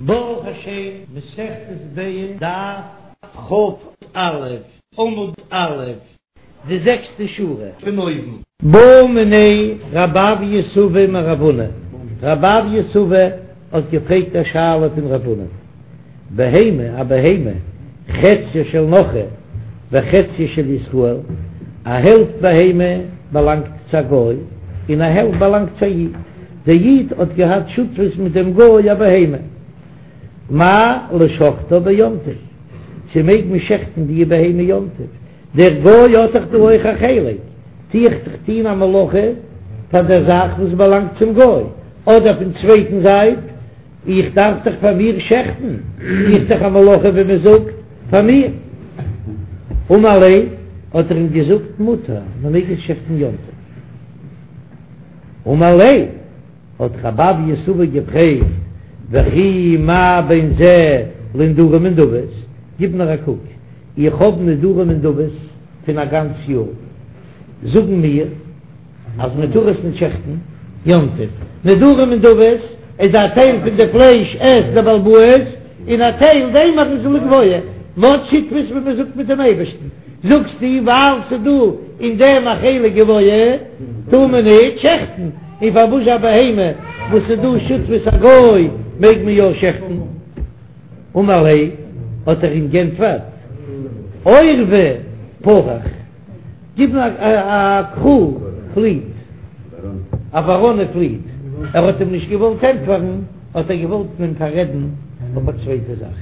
ברוך השם, מסכת ביצה, דף כ"א, עמוד א', די זעקסטע שורה פון אויבן. בעא מיניה רב אויא סבא מרב הונא, רב אויא סבא האט געפרעגט א שאלה פון רב הונא, בהמה, א בהמה, חציה של נכרי וחציה של ישראל, א העלפט בהמה באלאנגט צו א גוי און א העלפט באלאנגט צו א איד, דער איד האט געהאט שותפות מיט דעם גוי א בהמה, מהו לשוחטה ביום טוב, צו מעג מען שעכטן די בהמה יום טוב, דער גוי האט דאך דא אויך א חלק, טו איך דאך טון א מלאכה פאר דער זאך וואס באלאנגט צום גוי, אדער פון צווייטן זייט, איך דארף דאך פאר מיר שעכטן, טו איך דאך א מלאכה ווי מען זאגט פאר מיר. אמר ליה, האט ער אים געזאגט, מותר, מען מעג עס שעכטן יום טוב. אמר ליה, האט רב אויא סבא געפרעגט, וכי מה בין זה לנדרים ונדבות, גיב נאר א קוק, איך האב נדרים ונדבות פון א גאנץ יאר, זאגן מיר אז מען טאר עס נישט שעכטן יום טוב, נדרים ונדבות איז א טייל פון די פלייש עסט דער בעל הבית, און א טייל דעם איז לגבוה, מ'האט שותפות ווי מען זאגט מיט דעם אייבערשטן, זאגסטו ווייל ס'דא אין דעם א חלק גבוה טאר מען נישט שעכטן, און פארוואס א בהמה וואס איז דא שותפות א גוי מעג מען יא שעכטן? אמר ליה, האט ער אים גענטפערט, עורבא פרח, גיב מיר א קרא פליט, א וואראנע פליט, ער האט אים נישט געוואלט ענטפערן, האט ער געוואלט אים פאררעדן אויף א צווייטע זאך,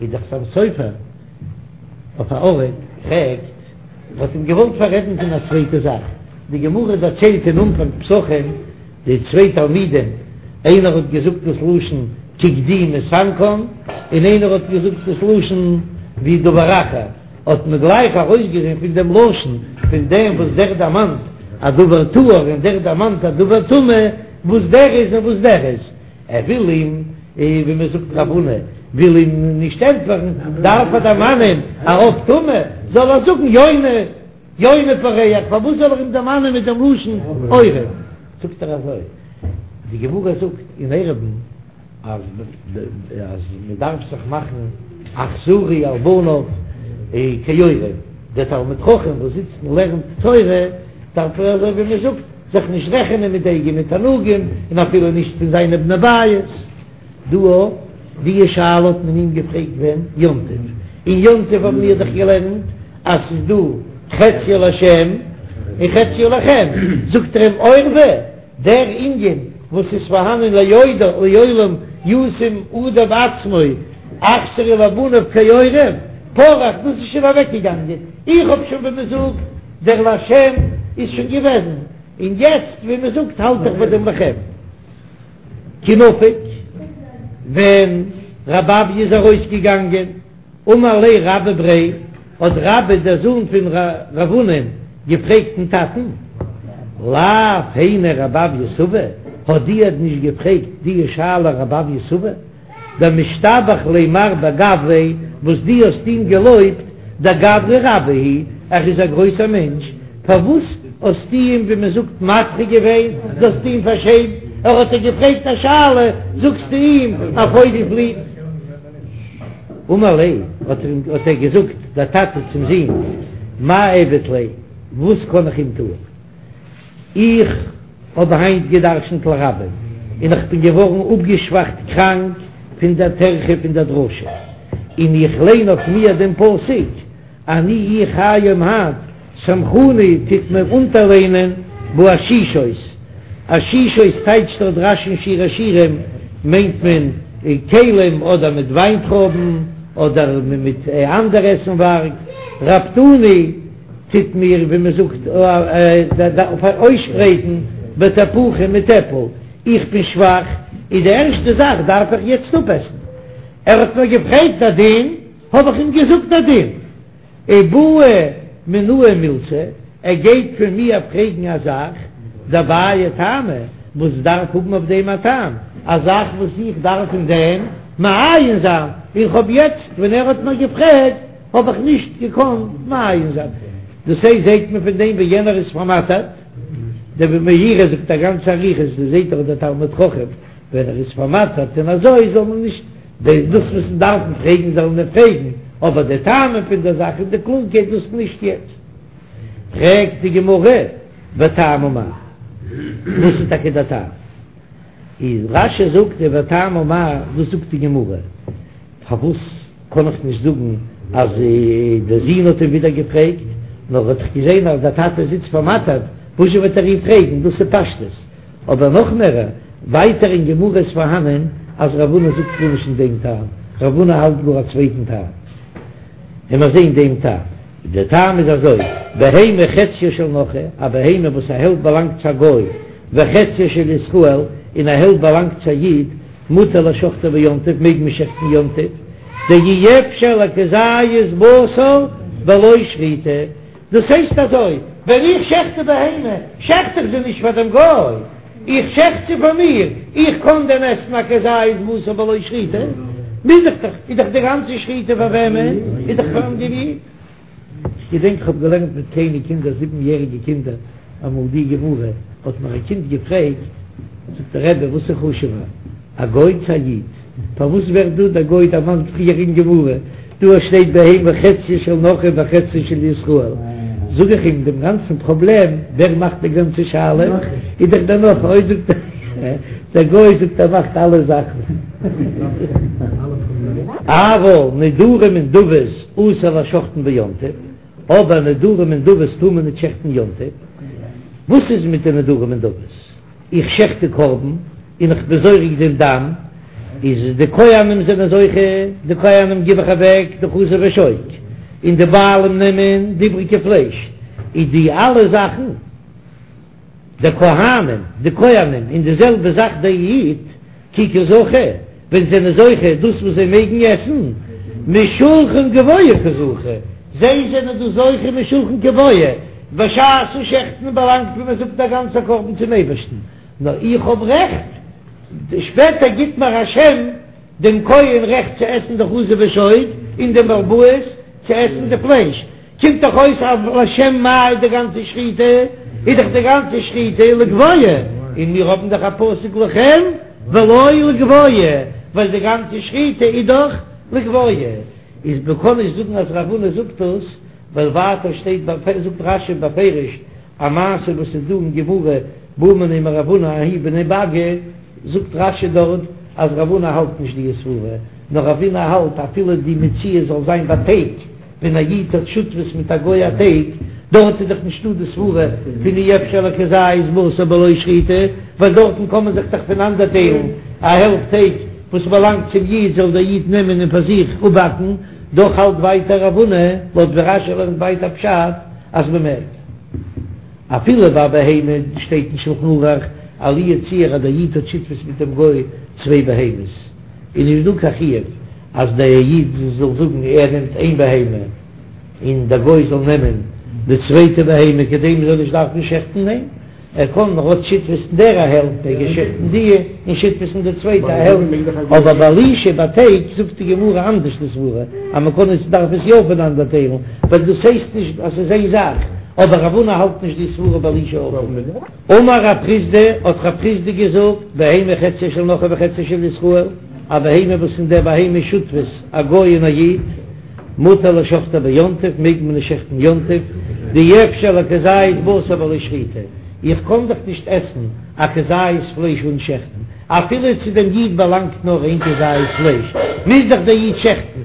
איז דער חתם סופר אויף א ארט פרעגט, ער האט אים געוואלט פאררעדן פון א צווייטע זאך, די גמרא דערציילט אין אנפאנג פסחים, די צוויי תלמידים, איינער האט געזאגט דאס לשון כגדי מסנקן, און איינער האט געזאגט דאס לשון ווי דבר אחר, האט מען גלייך ארויסגעזען פון דעם לשון פון דעם וואס דער דערמאנט א דבר טהור און דער דערמאנט א דבר טמא, וואס דער איז און וואס דער איז. ער וויל אים, ווי מען זאגט רב הונא וויל אים נישט ענטפערן, דארף ער דערמאנען א עוף טמא, זאל ער זאגן יונה, יונה פורח, פארוואס זאל ער אים דערמאנען מיט דעם לשון עורב? זאגט ער אזוי, די גמרא זאגט אין עירובין אז אז מען דארף זיך מאכן אכזרי על בניו כעורב, דער תלמיד חכם וואס זיצט און לערנט תורה דארף ער אזוי ווי מען זאגט זיך נישט רעכענען מיט די אייגענע תענוגים און אפילו נישט פון זיינע בני בית. דא די שאלה האט מען אים געפרעגט ווען? יום טוב. אין יום טוב האבן מיר דאך געלערנט אז ס'איז דא חציו לשם און חציו לכם, זאגט ער אים עורבא, דער ענין וואס איז פארהאנען לעולם ישים אדם עצמו אכזרי לבניו כעורב פרח, דאס איז שוין אוועקגעגאנגען, איך האב שוין ווי מ'זאגט דער לשם איז שוין געוועזן, און יעצט ווי מ'זאגט האלט איך ביי דעם לכם. כי נפיק, ווען רב אויא איז ארויסגעגאנגען, אמר ליה רבה בריה, האט רבה דער זון פון רב הונא'ן געפרעגט דעם טאטן, לאו היינו רב אויא סבא, האט דיר נישט געפרעגט די שאלה רב אויא סבא? דמשתבח ליה מר בגויה וואס דו האסט אים געלויבט, דגברא רבה הוא, ער איז א גרויסער מענטש, פארוואס האסטו אים ווי מען זאגט מדחה געווען, דו האסט אים פארשעמט, ער האט דיר געפרעגט א שאלה זאגסטו אים א פויגל פליט. אמר ליה, האט ער געזאגט דער טאטע צום זון, מאי איעביד ליה, וואס קען איך אים טוען? איך האב היינט גע'דרש'נט לרבים, און איך בין געווארן אפגעשוואכט קראנק פון דער טרחה פון דער דרשה, און איך ליין אויף מיר דעם פסוק, אני איך היום היינט, סמכוני טוט מיר אונטערלענען באשישות, אשישות טייטשט דארט רש"י אין שיר השירים, מיינט מען כלים אדער מיט וויינטרויבן אדער מיט אנדערע עסנווארג, רפדוני. טוט מיר ווי מען זאגט אויסשפרייטן בתפוחים מיט עפל, איך בין שוואך, איז די ערשטע זאך דארף איך יעצט אפעסן. ער האט מיר געפרעגט א דין, האב איך אים געזאגט א דין. ובעי מינאי מילתא, ער גייט פון מיר פרעגן א זאך, דבעיא טעמא, וואס דארף האבן אויף דעם א טעם, א זאך וואס איך דארף אין דעם מעיין זיין, און כ'האב יעצט ווען ער האט מיר געפרעגט, האב איך נישט געקאנט מעיין זיין. דאס הייסט זעהט מען פון דעם ווי יענער איז פארמאטערט, דער מאירי זאגט א גאנצע אריכות, דאס זעהט דאך דער תלמיד חכם ווען ער איז פארמאטערט און אזוי זאל מען נישט. דאס וואס מיר דארפן פרעגן זאלן מיר פרעגן, אבער די טעמים פון דער זאך און די קלארקייט דאס נישט יעצט. פרעגט די גמרא, וטעמא מאי? וואס איז טאקע דער טעם? איז רש"י זאגט די וטעמא מאי, וואס זאגט די גמרא? פארוואס קען איך נישט זאגן אז דער זון האט אים ווידער געפרעגט, נאר ער האט דאך געזען אז דער טאטע זיצט פארמאטערט, וואזשע וועט ער אים פרעגן, דאס איז פשטות. אבער נאך מער, ווייטער אין גמרא איז פארהאנען אז רב הונא זאגט גארנישט אין דעם טעם, רב הונא האלט גאר א צווייטן טעם. און מיר זעהן דעם טעם. דער טעם איז אזוי, בהמה חציה של נכרי, א בהמה וואס א העלפט באלאנגט צו א גוי, וחציה של ישראל, און א העלפט באלאנגט צו א איד, מותר לשחטה ביום טוב, מעג מען שעכטן יום טוב, דאי אפשר לכזית בשר בלא שחיטה. דאס הייסט אזוי, ווען איך שעכט די בהמה, שעכט איך זי נישט פאר דעם גוי, איך שעכט זי פאר מיר, איך קען דען עסן א כזית בשר בלא שחיטה? מוז איך דאך, איז דאך די גאנצע שחיטה פאר וועמען? איז דאך פארן דעם איד. כ'געדענק כ'האב געלערנט מיט קליינע קינדער, זיבן יעריגע קינדער, אמאל די גמרא, האט מיר א קינד געפרעגט, זאגט דער רבי וואס איז חשוב'ער, א גוי צו א איד? פארוואס ווערט דא דער גוי דערמאנט פריער אין גמרא? דא שטייט בהמה חציה של נכרי וחציה של ישראל, זאג איך אים דעם גאנצן פראבלעם, ווער מאכט די גאנצע שאלה? איז דאך דער נכרי, אוי זאגט ער, דער גוי זאגט ער מאכט אלע זאכן. אבל נדרים ונדבות אסור לשחטן ביום טוב, אבער נדרים ונדבות טאר מען נישט שעכטן יום טוב, וואס איז מיט די נדרים ונדבות? איך שעכט די קרבן און איך בין זורק דעם דם, איז די כהנים זענען זוכה, די כהנים גיב איך אוועק די חזה ושוק, און די בעלים נעמען די איבריגע פלייש, איז די אלע זאכן די כהנים, די כהנים, און די זעלבע זאך די איד, כי קא זכו, ווען זענען זוכה דאס וואס זיי מעגן עסן, משולחן גבוה קא זכו, זיי זענען דא זוכה משולחן גבוה, בשעת'ן שעכטן באלאנגט ווי מען זאגט א גאנצע קרבן צום אייבערשטן, נאר איך האב רעכט, שפעטער גיט מיר השם דעם כהן רעכט צו עסן די חזה ושוק, און דעם בעל הבית צו עסן די פלייש, קומט דאך אויס אז לשם מה איז די גאנצע שחיטה, איז דאך די גאנצע שחיטה לגבוה, און מיר האבן דאך א פסוק לכם ולא לגבוה, ווייל די גאנצע שחיטה איז דאך לגבוה, איז מען קען נישט זאגן אז רב הונא זאגט דאס, ווייל ווייטער שטייט זאגט רש"י בפירוש א מעשה וואס איז דא אין גמרא בעו מיניה מרב הונא ההוא בני באגא, זאגט רש"י דארט אז רב הונא האלט נישט די סברה, נאר רב הונא האלט אפילו די מציאות זאל זיין ביי טייג, ווען א איד האט שותפות מיט א גוי א טייג, דארט איז דאך נישטא די סברה פון אי אפשר לכזית בשר בלא שחיטה, ווייל דארטן קען מען זיך דאך פונאנדערטיילן, א העלפט טייג וואס באלאנגט צום איד זאל דער איד נעמען און פאר זיך אפבאקן, דאך האלט ווייטער רב הונא, לויט ווי רש"י לערנט ווייטער פשט אז מען מעג. אפילו ביי בהמה שטייט אין שלחן ערוך אז לו יצוייר אז דער איד האט שותפות מיט דעם גוי צוויי בהמות, איז נישט דא קיין חיוב אז דער איד זאל זאגן ער נעמט איין בהמה און דער גוי זאל נעמען די צווייטע בהמה כדי מען זאל נישט דארפן שעכטן, ניין, ער קען ער האט שותפות אין דער א העלפט מעג ער שעכטן די און שותפות אין די צווייטע א העלפט, אבער ביי לישה ביי טייג זאגט די גמרא אנדערש די סברה אז מען קען עס דארף עס יא פונאנדער טיילן ווייל דאס הייסט נישט אז ס'איז איין זאך, אבער רב הונא האלט נישט די סברה ביי לישה אויך. אמר רב חסדא, האט רב חסדא געזאגט, בהמה חציה של נכרי וחציה של ישראל, א בהמה וואס אין דער בהמה איז שותפות א גוי און א איד, מותר לשחטה ביום טוב, מעג מען עס שעכטן יום טוב, דאי אפשר לכזית בשר בלא שחיטה, איך קען דאך נישט עסן א כזית פלייש אן שעכטן, אפילו צו דעם איד באלאנגט נאר איין כזית פלייש, מוז דאך דער איד שעכטן,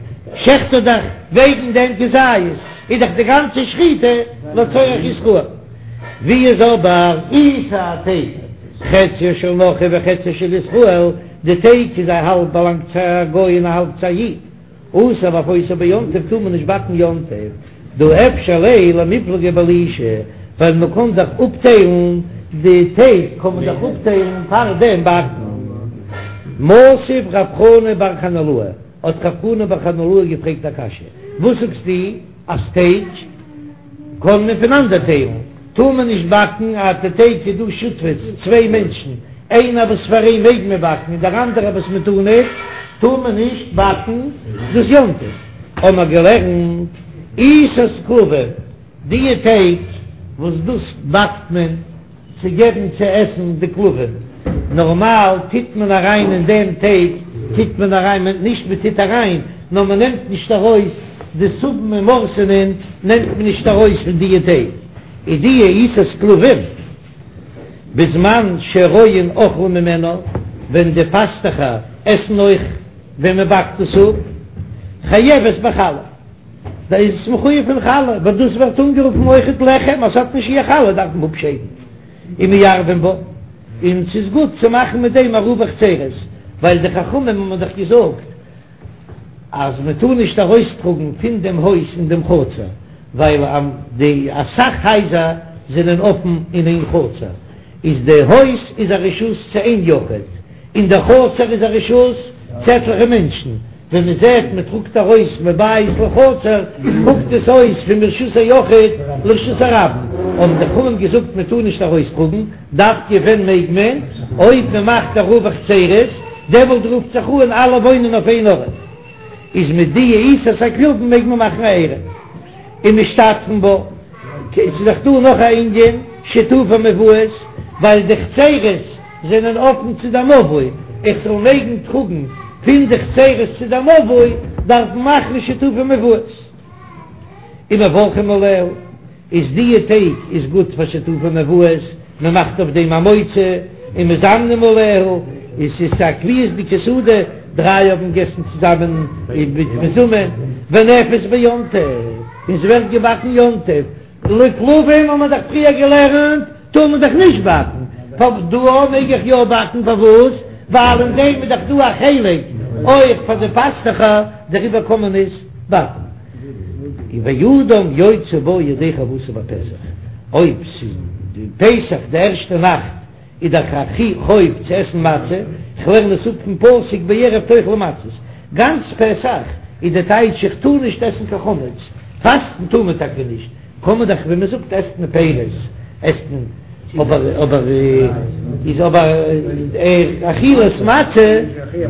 שעכט ער דאך וועגן דעם כזית, איז דאך די גאנצע שחיטה לצורך ישראל. ווי איז אבער עיסה, א טייג, חציה של נכרי וחציה של ישראל, די טייג איז א האלב באלאנגט צו א גוי און א האלב צו א איד, אסור לאפותה ביום טוב טאר מען נישט באקן יום טוב, דהא אפשר ליה למיפלגה בלישה, ווייל מען קען דאך אפטיילן די טייג קען מען דאך אפטיילן פאר דעם באקן. מתיב רב חנא בר חנילאי, האט רב חנא בר חנילאי געפרעגט א קשיא, וואס זאגסטו אז טייג קען מען פונאנדערטיילן, טאר מען נישט באקן אז די טייג איז דא שותפות צוויי מענטשן, איינער וואס פאר אים מעג מען באקן און דער אנדערער וואס מען טאר נישט, טאר מען נישט באקן דאס יום טוב. האבן מיר געלערנט עיסת כלבים, די טייג וואס דאס באקט מען צו געבן צו עסן די כלבים. נארמאל טוט מען אריין אין דעם טייג טוט מען אריין מען נישט מען טוט אריין נאר מען נעמט נישט ארויס די סובין און מורסנין נעמט מען נישט ארויס פון דיע טייג איז דיע עיסת כלבים בזמן שהרועים אוכלים ממנה ווען די פאסטעכער עסן אויך ווען מען באקט עס אפ חייבת בחלה. דא איז עס מחויב פון חלה, ווייל דאס ווערט אנגערופן אויכעט לחם, אז ס'האט נישט שיעור חלה דארף מען אפשיידן ומערבין בה, און ס'איז גוט צו מאכן מיט דעם עירובי חצירות, ווייל די חכמים האבן דאך געזאגט אז מען טאר נישט ארויסטראגן פון דעם הויז אין דעם חצר, ווייל די אסאך הייזער זענען אפן אין איין חצר, איז די הויז איז א רשות צו איין יחיד, און די חצר איז א רשות צו עטליכע מענטשן. ווען מען זעט מען טראגט ארויס מבית לחצר קוקט עס אויס פון מרשות היחיד לרשות הרבים, האבן די חכמים געזאגט מען טאר נישט ארויסטראגן, דווקא ווען מעג מען? אויב מען מאכט עירובי חצירות, דעמאלט רופט זיך אן אלע וואוינען אויף איין ארט, איז מיט די עיסת הכלבים מעג מען מאכן א עירוב ומשתתפין בה. ס'איז דאך דא נאך א ענין שיתופי מבואות, ווייל די חצירות זענען אפן צו די מבוי, איך זאל מעגן טראגן פון די חצירות צו די מבוי, דארף מען מאכן שיתופי מבואות. ומברכים עליה, איז דיע טייג איז גוט פאר שיתופי מבואות, מען מאכט אויף דעם המוציא, ומזמנים עליה, און ס'איז א קביעות'דיגע סעודה, דריי האבן געגעסן צוזאמען מיט מזומן, ונאפית ביום טוב, און ס'ווערט געבאקן יום טוב, לכלבים האט מען דאך פריער געלערנט טאר מען דאך נישט באקן, דא מעג איך יא באקן, פארוואס? ווייל אין דעם איז דאך דא א חלק אויך פאר די פאסטוכער, דעריבער קען מען עס באקן. ואדם יוצא בה ידי חובתו בפסח, אויב ס'איז די פסח די ערשטע נאכט איז דאך א חוב צו עסן מצה, כ'לערן עס אפ פון פסוק בערב תאכלו מצות, גאנץ פסח איז די טייטש איך טאר נישט עסן קיין חמץ, פאסטן טאר מען טאקע נישט, קען מען דאך ווי מען זאגט עסט מען פירות, עסט מען אבער אבער איז אבער אכילת מצה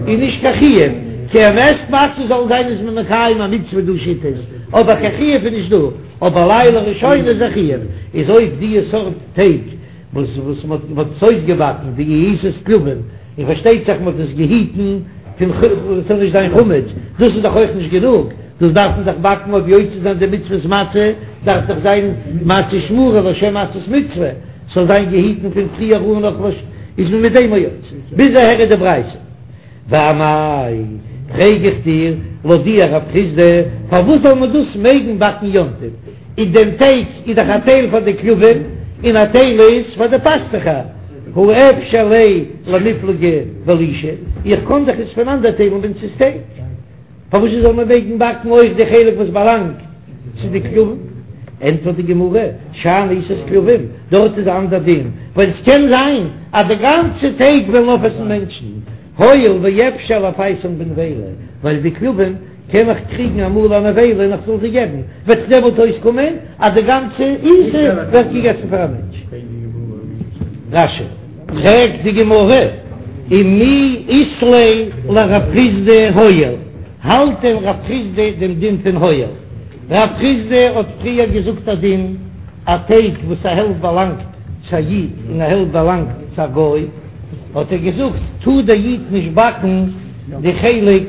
איז נישט קיין חיוב, כי מען עסט מצה זאל זיין איז מען מקיים א מצוה דא שיטות, אבער קיין חיוב איז נישט דא, אבער לילה ראשונה איז א חיוב, איז אויב דיע סארט טייג וואס וואס מען האט עס אויסגעבאקן די עיסת כלבים, און פארשטייט זיך מען האט עס געהיטן פון עס זאל נישט זיין חמץ, דאס איז דאך אויך נישט גענוג, דאס דארף מען דאך באקן אויף יוצא זיין די מצוות מצה, דארף דאך זיין מצה שמורה לשם מצות מצוה, ס'זאל זיין געהיטן פון פריער אן נאך וואס איז מען מיט דעם יוצא, ביז אהער איז די ברייתא. ואמאי, פרעג איך דיר, לויט דיר רב חסדא, פארוואס זאל מען דאס מעגן באקן יום טוב? אין דעם טייג איז דאך א טייל פאר די כלבים און א טייל איז פאר די פאסטוכער, הא אפשר ליה למיפלגי בלישה, איך קען דאך עס פונאנדערטיילן ווען ס'איז טייג, פארוואס זאל מען מעגן באקן אויך די חלק וואס באלאנגט צו די כלבים? ענטפערט די גמרא, שאני עיסת כלבים, דארט איז א אנדער דין, ווייל עס קען זיין אז די גאנצע טייג וועלן אויפעסן מענטשן, הואיל ואפשר לפייסן בנבילה, ווייל די כלבים קען איך קריגן אמאל א נבילה און איך זאל זיי געבן, וועט דעמאלט אויסקומען אז די גאנצע עיסה ווערט געגעסן פאר א מענטש. רש"י, פרעגט די גמרא, ומי אית ליה לרב חסדא הואיל, האלט דען רב חסדא דעם דין פון הואיל? רב חסדא האט פריער געזאגט א דין, א טייג וואס א העלפט באלאנגט צו א איד און א העלפט באלאנגט צו א גוי, האט ער געזאגט, טאר דער איד נישט באקן די חלק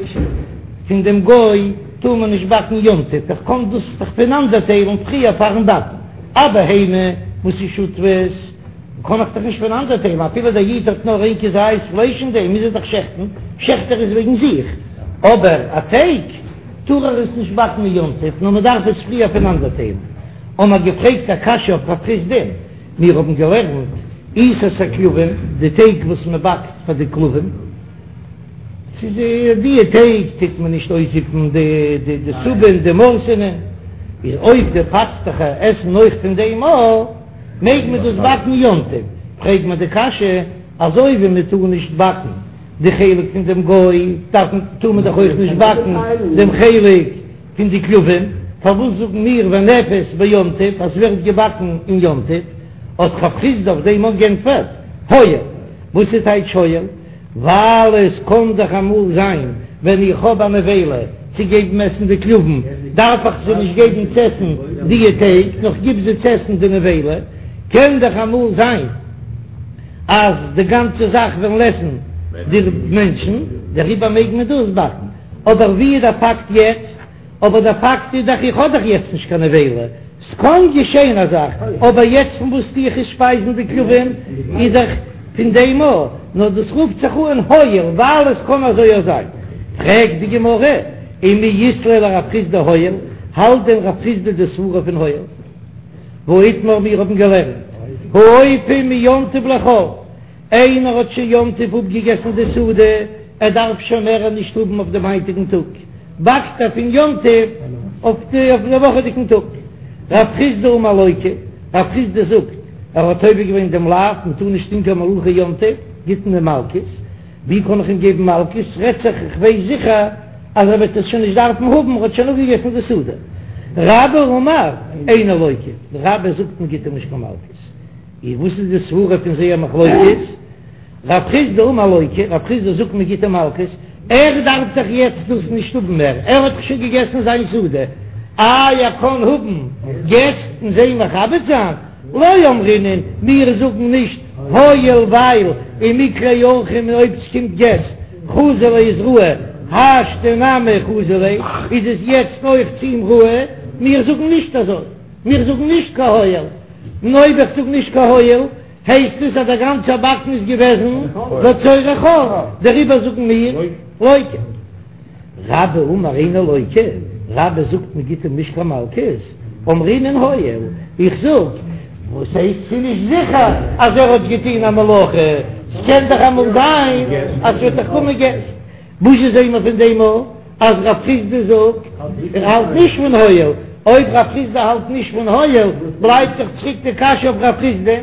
פון דעם גוי, טאר מען נישט באקן יום טוב, איך קען דאס דאך פונאנדערטיילן פריער פארן באקן, א בהמה וואס איז שותפות, קען איך דאך נישט פונאנדערטיילן, אפילו דער איד האט נאר איין כזית פלייש אין דעם, מוז ער דאך שעכטן, שעכט ער עס וועגן זיך, אבער א טייג טאר ער עס נישט באקן אין יום טוב, נאר מען דארף עס פריער פונאנדערטיילן. האבן מיר געפרעגט א קשיא אויף רב חסדא'ן, מיר האבן געלערנט עיסת הכלבים, די טייג וואס מען באקט פאר די כלבים, ס'איז די טייג טוט מען נישט אויסזיפן די די סובין די מורסענע, איז אויב די פאסטוכער עסן אויך פון דעם אויך, מעג מען דאס באקן יום טוב? פרעג מיר די קשיא, אזוי ווי מען טאר נישט באקן די חלק פון דעם גוי, דארף מען טאר מען דאך אויך נישט באקן דעם חלק פון די כלבים, פארוואס זאגן מיר ונאפית ביום טוב אז ס'ווערט געבאקן אין יום טוב? האט רב חסדא אויף דעם אויך גענטפערט, הואיל, וואס איז טייטש הואיל? ווייל עס קען דאך אמאל זיין ווען איך האב א נבילה צו געבן עסן די כלבים, דארף איך זיי נישט געבן צו עסן דיע טייג, נאר כ'גיב זיי צו עסן די נבילה, קען דאך אמאל זיין. אז די גאנצע זאך וועלן עסן די מענטשן, דעריבער מעג מען דאס באקן. אבער ווי איז דער פאקט יעצט? אבער דער פאקט איז דאך איך האב דאך יעצט נישט קיין נבילה, ס'קען געשען א זאך, אבער יעצט פון וואס טו איך עס שפייזן די כלבים איז דאך פון דעם א, נאר דאס רופט זיך אן הואיל ווייל עס קען אזוי אויך זיין. פרעגט די גמרא, ומי אית ליה לרב חסדא הואיל, האלט דען רב חסדא די סברה פון הואיל? והאיתמר מיר האבן געלערנט, האופה מיום טוב לחול, איינער האט שוין יום טוב אפגעגעסן די סעודה, ער דארף שוין מער נישט האבן אויף דעם היינטיגן טאג, באקט ער פון יום טוב אויף די אויף דעם וואכעדיגן טאג. רב חסדא אמר לוקה, רב חסדא זאגט, ער האט עובר געווען דעם לאו, מען טאר נישט טון קיין מלאכה יום טוב, גיט מען אים מלקות, ווי קען איך אים געבן מלקות, רעדט זיך איך ווייס זיכער אז ער וועט עס שוין נישט דארפן האבן, ער האט שוין אפגעגעסן די סעודה. רבה אמר, אינו לוקה, רבה זאגט מען גיט אים נישט קיין מלקות. און וואס איז די סברה פון זייער מחלוקת? רב חסדא אמר לוקה, רב חסדא זאגט מען גיט אים מלקות, ער דארף דאך יעצט דאס נישט האבן מער, ער האט דאך שוין געגעסן זיין סעודה, איי ער קען האבן געסט און זיי מכבד זיין? לא אמרינן, מיר זאגן נישט הואיל ווייל ומיקלעי אורחים און אויב ס'קומט געסט חזי ליה איז ראוי, השתא נמי חזי ליה איז עס יעצט אויך צו אים ראוי, מיר זאגן נישט אזוי, מיר זאגן נישט קיין הואיל. און אויב איך זאג נישט קיין הואיל, הייסט עס אז דער גאנצער באקן איז געוועזן לצורך חול, דעריבער זאגן מיר לוקה. רבה אמר אינו לוקה, רבה זאגט מען גיט אים נישט קיין מלקות, אמרינן הואיל, איך זאג, וואס הייסט ס'איז נישט זיכער אז ער האט געטון א מלאכה, ס'קען דאך אמאל זיין אז ס'וועט דאך קומען געסט. וואס זעען מיר פון דעם א אז רב חסדא זאגט ער האלט נישט פון הואיל, אויב רב חסדא האלט נישט פון הואיל בלייבט דאך צוריק די קשיא אויף רב חסדא,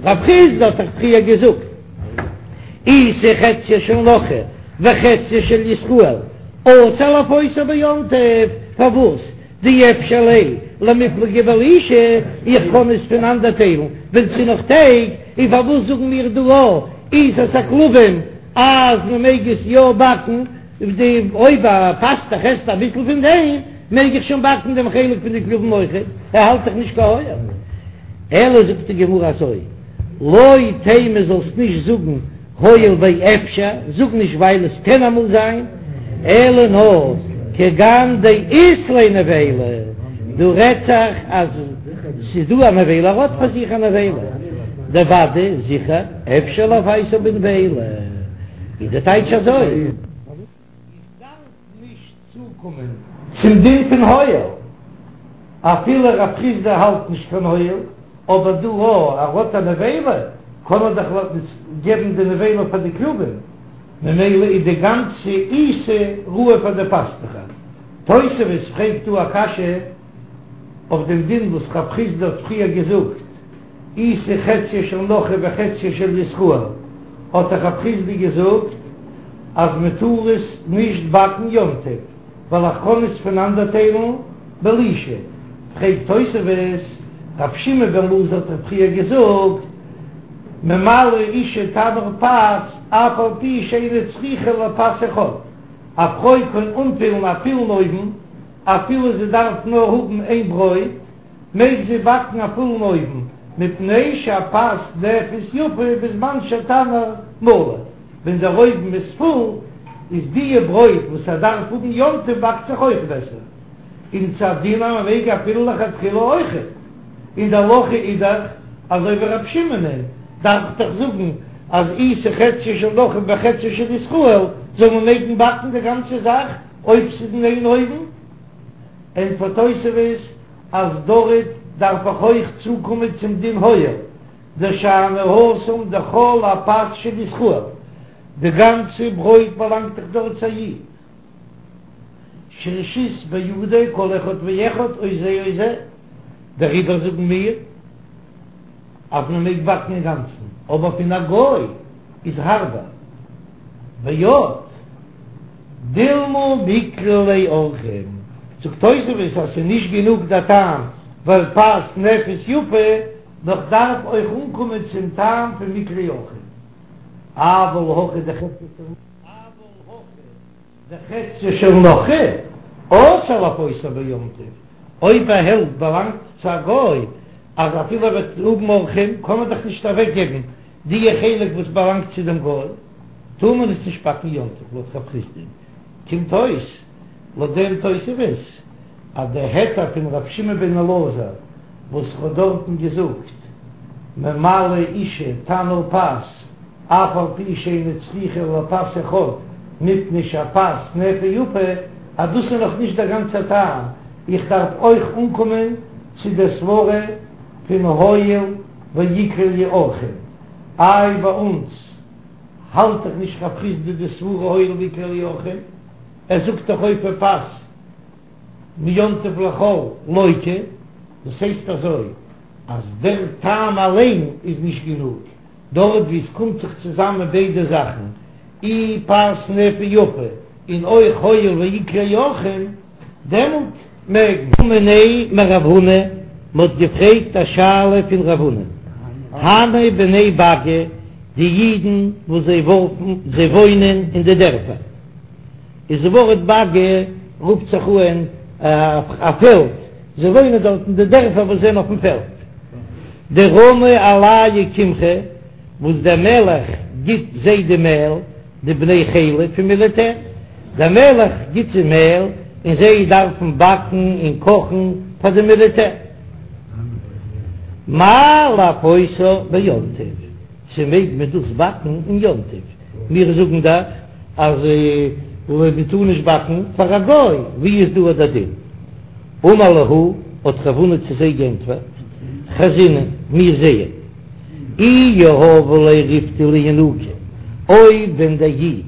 רב חסדא האט דאך פריער געזאגט עיסה חציה של נכרי וחציה של ישראל אסור לאפותה ביום טוב, פארוואס דאי אפשר ליה למיפלגה בלישה, איך קען עס פונאנדערטיילן ווען ס'איז נאך טייג, און פארוואס זאגן מיר דא א עיסת הכלבים אז מען מעג עס יא באקן, די אויב א פאסטעך עסט אביסל פון דעם מעג איך שוין באקן דעם חלק פון די כלבים אויכעט, ער האלט דאך נישט קיין הואיל. אלא זאגט די גמרא אזוי, לא תימא זאלסט נישט זאגן הואיל ואפשר, זאג נישט ווייל עס קען אמאל זיין, אלא נאר כגון דאית ליה נבילה, דא רעדט זיך אז ס'איז דא א נבילה, ער האט פאר זיך א נבילה, דודאי זיכער אפשר לאפייתו בנבילה, איז די טייטש אזוי. איך דארף נישט צוקומען צום דין פון הואיל, אפילו רב חסדא האלט נישט פון הואיל, אבער דא אויב ער האט א נבילה, קען ער דאך געבן די נבילה פאר די כלבים, ממילא איז די גאנצע עיסה ראוי פאר די פאסטוכער. תוספות פרעגט דא א קשיא אויף דעם דין וואס רב חסדא האט פריער געזאגט, עיסה חציה של נכרי וחציה של ישראל, האט דאך רב חסדא געזאגט אז מען טאר עס נישט באקן יום טוב ווייל איך קען עס פונאנדערטיילן בלישה, פרעגט תוספות, רב שמעון בן אלעזר האט דאך פריער געזאגט ממלאה אשה תנור פת אף על פי שאינה צריכה לפת אחד, א פרוי קען אנפילן א פולן אויוון אפילו זי דארף נאר האבן איין ברויט, מעג זי באקן א פולן אויוון, מפני שהפת נאפית יפה בזמן שהתנור מלא, ווען דער אויוון איז פול, איז דיע ברויט וואס ער דארף האבן יום טוב באקט זיך אויך בעסער, און ס'איז א דין אז מען מעג אפילו לכתחילה אויכעט, און די הלכה איז דאך אזוי ווי רב שמעונ'ען, דארף איך דאך זאגן אז עיסה חציה של נכרי וחציה של ישראל זאל מען מעגן באקן די גאנצע זאך אויב ס'איז אין איין אויוון. ענטפערט תוספות אז דארט דארף איך אויך צוקומען צום דין הואיל, דשאני התם דכל הפת של ישראל, די גאנצע ברויט באלאנגט דאך דארט צו א איד, שרשות בידו כל אחד ואחד או זה או זה, דעריבער זאגן מיר אז מען מעג באקן אינגאנצן, אבער פון א גוי איז הארבער. ועוד דילמא מיקלעי ליה אורחים, זאגט תוספות אז ס'איז נישט גענוג דער טעם ווייל פת נאפית יפה, נאר כ'דארף אויך אנקומען צום טעם פון מיקלעי אורחים. אבל הכא דחציה של נכרי אסור לאפותה ביום טוב, אויב א העלפט באלאנגט צו א גוי אז אפילו ער וועט האבן אורחים קען מען דאך נישט אוועקגעבן. די חלק וואס באלאנגט צו דעם גוי, טאר מען עס נישט באקן יום טוב לויט רב חסדא, קומט אויס לויט דעם תוספות אז די היתר פון ר' שמעון בן אלעזר וואס האט דארטן געזאגט ממלאה אשה תנור פת אף על פי שאינה צריכה אלא פת אחד מפני שהפת נאפה יפה אז דאס איז נאך נישט דער גאנצער טעם, איך דארף אויך אנקומען צו דער סברה פון הואיל ואיקלעו אורחים, איי ביי אונז האלט דאך נישט רב חסדא די סברה הואיל ואיקלעו אורחים, ער זאגט דאך אופה פת מיום טוב לחול לוקה, דאס הייסט אזוי אז דער טעם אליין איז נישט גענוג, דארט ווי עס קומט זיך צוזאמען ביידע זאכן, אי פת נאפה יפה און אויך הואיל ואיקלעו אורחים, דעמאלט מעג מען. מיניה מרב הונא, מען האט געפרעגט א שאלה פון רב הונא, הני בני באגא, די אידן וואס זיי ווארפן, זיי וואוינען אין די דערפער, איז די ווארט באגא רופט זיך אן א פעלד, זיי וואוינען דארט אין די דערפער וואס זענען אויפן פעלד, דרמו עלייהו קמחא, וואס דער מלך גיט זיי די מעל, די בני חילא פון מיליטער, דער מלך גיט זיי מעל און זיי דארפן באקן און קאכן פאר די מיליטער. מהו לאפותה ביום טוב, צו מעג מען דאס באקן אין יום טוב? מיר זאגן דאך אז מען טאר נישט באקן פאר א גוי, ווי איז דא דער דין? אמר להו, האט רב הונא צו זיי גענטפערט, חזינן, מיר זעען. אי יהבו ליה ריפתא לינוקא, אויב ווען דער איד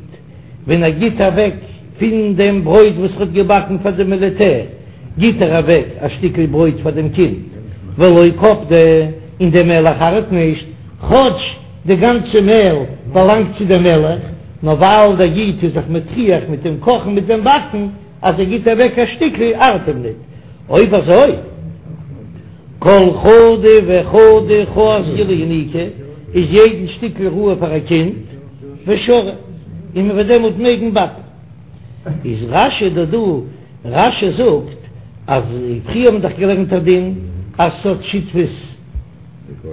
ווען ער גיט אוועק פון דעם ברויט וואס ער האט געבאקן פאר די מיליטער, גיט ער אוועק א שטיקל ברויט פאר דעם קינד, ולא קפדי, און דער מלך ארט נישט, כאטש די גאנצע מעל באלאנגט צו דעם מלך, נאר ווייל דער איד איז זיך מטריח מיט דעם קאכן מיט דעם באקן, אז ער גיט אוועק א שטיקל ארט אים ניט. אויב אזוי, כל חדא וחדא חזקה לינוקא, איז יעדן שטיקל ראוי פאר א קינד, ושרי, און מען וועט דעמאלט מעגן באקן. איז רש"י דא דא, רש"י זאגט אז פריער האט מען דאך געלערנט א דין אז ס'האט שותפות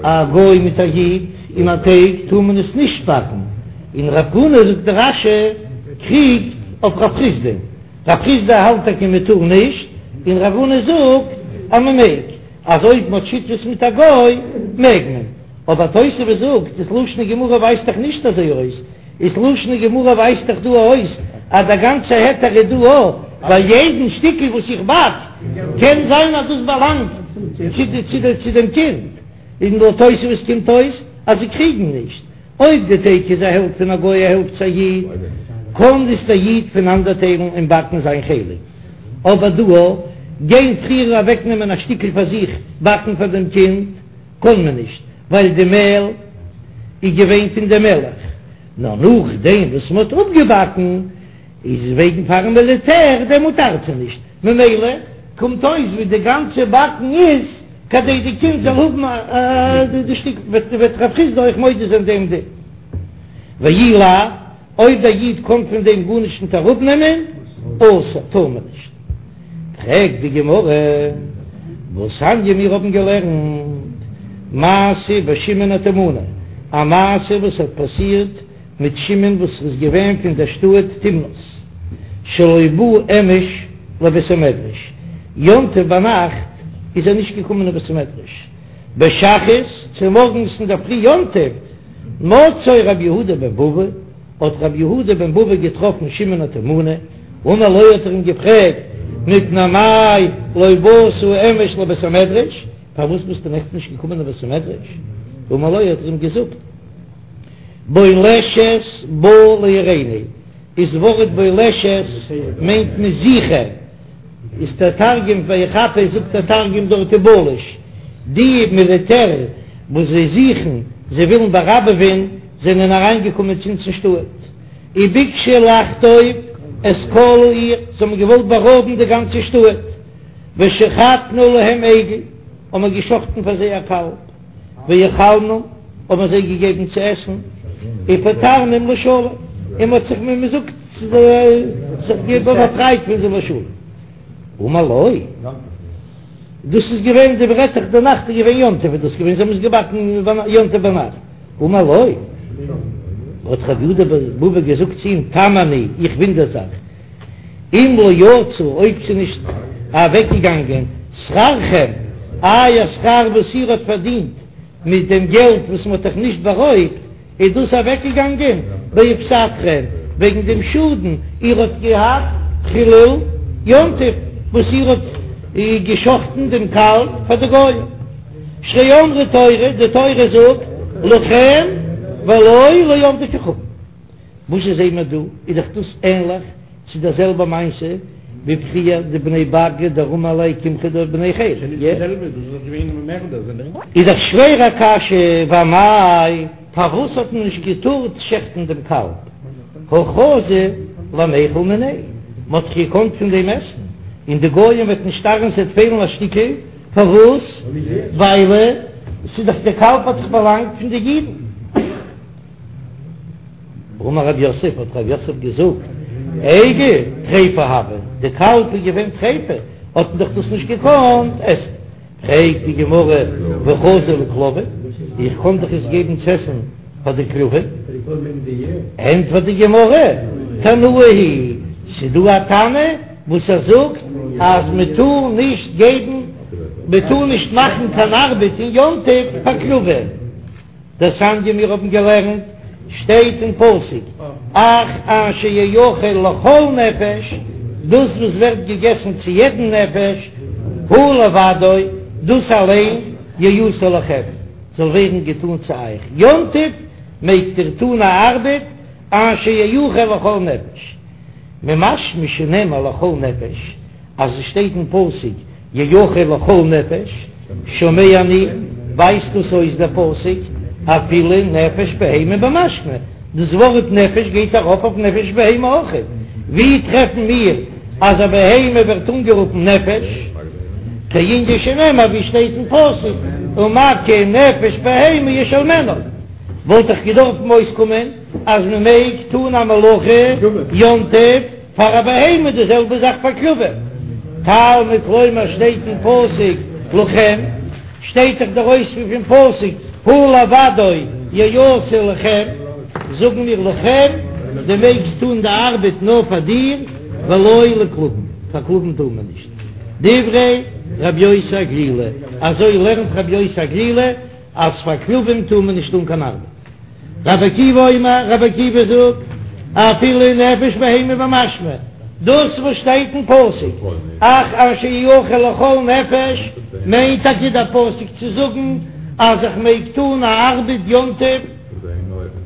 א גוי מיט א איד אין א טייג טאר מען עס נישט באקן, און רב הונא זאגט דער רש"י קריגט אויף רב חסדא, רב חסדא האלט טאקע מען טאר נישט, און רב הונא זאגט אז מען מעג, אז אויב מען האט שותפות מיט א גוי מעג מען, אבער תוספות זאגט דאס לשון הגמרא ווייזט דאך נישט אזוי אויס, איז לשון הגמרא ווייזט דאך דא אויס אז דער גאנצער היתר איז דא אויך ביי יעדן שטיקל וואס איך באק, קען זיין אז דאס באלאנגט צו דעם קינד, און לויט תוספות קומט אויס אז זיי קריגן נישט, אויב די טייג איז א העלפט פון א גוי א העלפט צו א איד, קען דאס דער איד פונאנדערטיילן און באקן זיין חלק, אבער דא גיין פריער אוועקנעמען א שטיקל פאר זיך באקן פאר דעם קינד. קען מען נישט, ווייל די מעל איז געווען פון די מלך, נאר נאכדעם וואס מען האט אפגעבאקן איז וועגן פארן מיליטער, דעמאלט ארט זיי נישט, ממילא קומט אויס ווי די גאנצע באקן איז כדי די קינד זאל האבן די שטיק, וועט רב חסדא אויך מודה זיין דעם דין. ואי לאו, אויב דער איד קען פון דעם גארנישט ניט אראפנעמען, אסור, טאר מען נישט. פרעגט די גמרא, והתניא מיר האבן געלערנט מעשה בשמעון התימני, א מעשה וואס האט פאסירט מיט שמעון וואס איז געווען פון דער שטאט תמנת, שלא בא אמש לבית המדרש, יום טוב ביינאכט איז ער נישט געקומען אין בית המדרש, בשחרית צומארגנס אינדערפרי יום טוב מצאו רבי יהודה בן בבא, האט רבי יהודה בן בבא געטראפן שמעון התימני, אמר לו האט ער אים געפרעגט, מפני מה לא באת אמש לבית המדרש, פארוואס ביסטו נעכטן נישט געקומען אין בית המדרש? אמר לו האט ער אים געזאגט, בולשת באה לעירנו, איז ווארט בולשת מיינט מען זוכער, איז דער תרגום ויחפש זאגט דער תרגום דארט ובלש, די מיליטער וואס זיי זוכן, זיי ווילן באראבעווען, זענען אריינגעקומען צו אונז אין שטאט, וביקשו לחטוף את כל העיר, זיי האבן געוואלט בארויבן די גאנצע שטאט, ושחטנו להם עגל, האבן מיר געשחטן פאר זיי א קאלב, והאכלנום, האבן מיר זיי געגעבן צו עסן, ופטרנום לשלום, און מען האט זיך ווי מען זאגט זיך באפרייט פון זיי לשלום. אמר לו. דאס איז געווען די ברעטעך די נאכט איז געווען יום טוב איז דאס געווען זיי האבן עס געבאקן יום טוב ביינאכט. אמר לו, האט רב יהודה בבא געזאגט צו אים, תם אני, איך ווינדער זיך, אם לא יצא, אויב ס'איז נישט אוועקגעגאנגען שכרכם, אייער שכר וואס איר האט פארדינט מיט דעם געלט וואס מ'האט אייך נישט בארויבט, איז דאס אוועקגעגאנגען בהפסדכם וועגן דעם שאדן איר האט געהאט חילול יום טוב וואס איר האט געשחטן דעם קאלב פאר די גוים. שהרי אמרה תורה, די תורה זאגט לכם ולא לעובדי כוכבים. וואס זשע זעהן מיר דא? איז דאך דאס ענליך צו דער זעלבער מעשה ווי פריער די בני באגא דרמו עליה קמחא דבני חילא. איז דאך שווער א קשיא, ואמאי פארוואס האט מען נישט געטארט שעכטן דעם קאלב? הא חזו למיכל מיניה, מען האט דאך געקאנט פון דעם עסן, און די גויים וועט נישט ארן ס'וועט פעלן א שטיקל, פארוואס? ווייל ס'איז דאך דער קאלב האט דאך באלאנגט פון די אידן. אמר רב יוסף, האט רב יוסף געזאגט, עגל טריפה הוה, די קאלב איז געווען טריפה, האט מען דאך דאס נישט געקאנט עסן. פרעגט די גמרא, והא חזו לכלבים, איך קען דאך עס געבן צו עסן פאר די כלבים? ענטפערט די גמרא, תנאי היא, ס'איז דא א תנא וואס ער זאגט אז מען טאר נישט געבן, מען טאר נישט מאכן קיין ארבעט אין יום טוב פאר כלבים. דתניא מיר האבן געלערנט, שטייט אין פסוק, אך אשר יאכל לכל נפש, דאס וואס ווערט געגעסן צו יעדן נפש, הוא לבדו, דאס אליין, יעשה לכם, זאל ווערן געטאן צו אייך, יום טוב מעגט איר טאן א ארבעט, אשר יאכל לכל נפש, ממשמע שנאמר לכל נפש, אז עס שטייט אין פסוק יאכל לכל נפש, שומע אני, ווייזט דאס אויס דער פסוק אפילו נפש בהמה במשמע, דאס ווארט נפש גייט ארויף אויף נפש בהמה אויך, ווי טרעפן מיר אז א בהמה ווערט אנגערופן נפש? כענין שנאמר ווי שטייט אין פסוק ומכה נפש בהמה ישלמנה, וואלט דאך געדארפן אויסקומען אז מען מעג טון א מלאכה יום טוב, פאר א בהמה די זעלבע זאך פאר כלבים, תלמוד לומר שטייט אין פסוק לכם, שטייט דאך דער אויספיר פון פסוק הוא לבדו יעשה לכם, זאגן מיר לכם, דו מעגסט טון די ארבעט נאר פאר דיר, ולא לכלבים, פאר כלבים טאר מען נישט. דברי רבי יוסי הגלילי, אזוי לערנט רבי יוסי הגלילי אז פאר כלבים טאר מען נישט טון קיין ארבעט. רבי עקיבא אומר, רבי עקיבא זאגט, אפילו נפש בהמה במשמע, דאס וואס שטייט אין פסוק, אך אשר יאכל לכל נפש, מיינט טאקע דער פסוק צו זאגן אז איך מעג טון א ארבעט יום טוב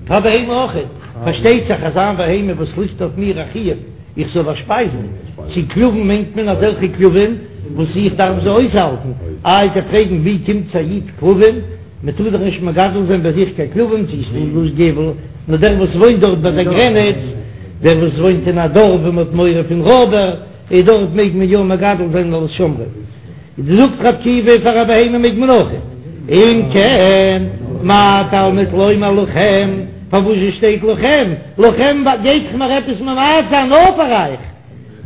פאר בהמה אויכעט, פארשטייט זיך אז איין בהמה וואס ליגט אויף מיר א חיוב איך זאל באשפייזן, צו כלבים מיינט מען אזעלכע כלבים וואס איך דארף זיי אויסהאלטן, איי וועט איר פרעגן ווי קומט צו א איד כלבים? מען טאר דאך נישט מגדל זיין ביי זיך קיין כלבים צו ס'איז דא געבל, נאר דער וואס וואוינט דארט ביי דער גרעניץ, דער וואס וואוינט אין א דארף וואו מען האט מורא פון רויבער, איז דארט מעג מען יא מגדל זיין אלס שומרים. זאגט רבי עקיבא פאר א בהמה מעג מען אויך. אם כן, מה תלמוד לומר לכם, פארוואס שטייט לכם? לכם גייט דאך מיר עפעס ממעט זיין נאר פאר אייך,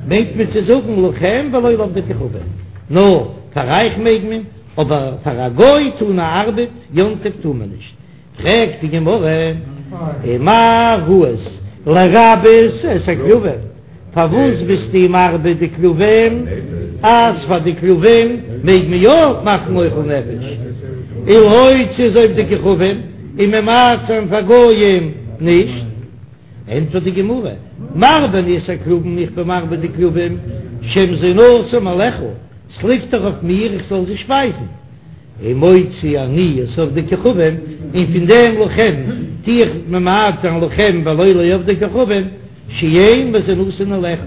מיינט מען צו זאגן לכם ולא לעובדי כוכבים, נאר פאר אייך מעג מען. אבער פאר א גוי טון א ארבעט יום טוב טאר מען נישט, פרעגט די גמרא, ומה ראית לרבות את הכלבים, פארוואס ביסטו מרבה די כלבים אז פאר די כלבים מעג מען יא מאכן אוכל נפש, ולהוציא את עובדי כוכבים און ממעט זיין פאר גויים נישט? ענטפערט די גמרא, מרבה אני את הכלבים, איך בין מרבה די כלבים, שמזונותם עליך, ס'ליגט דאך אויף מיר איך זאל זיי שפייזן, ומוציא אני את עובדי כוכבים, און פון דעם לכם טו איך ממעט זיין לכם ולא לעובדי כוכבים, שאין מזונותן עליך,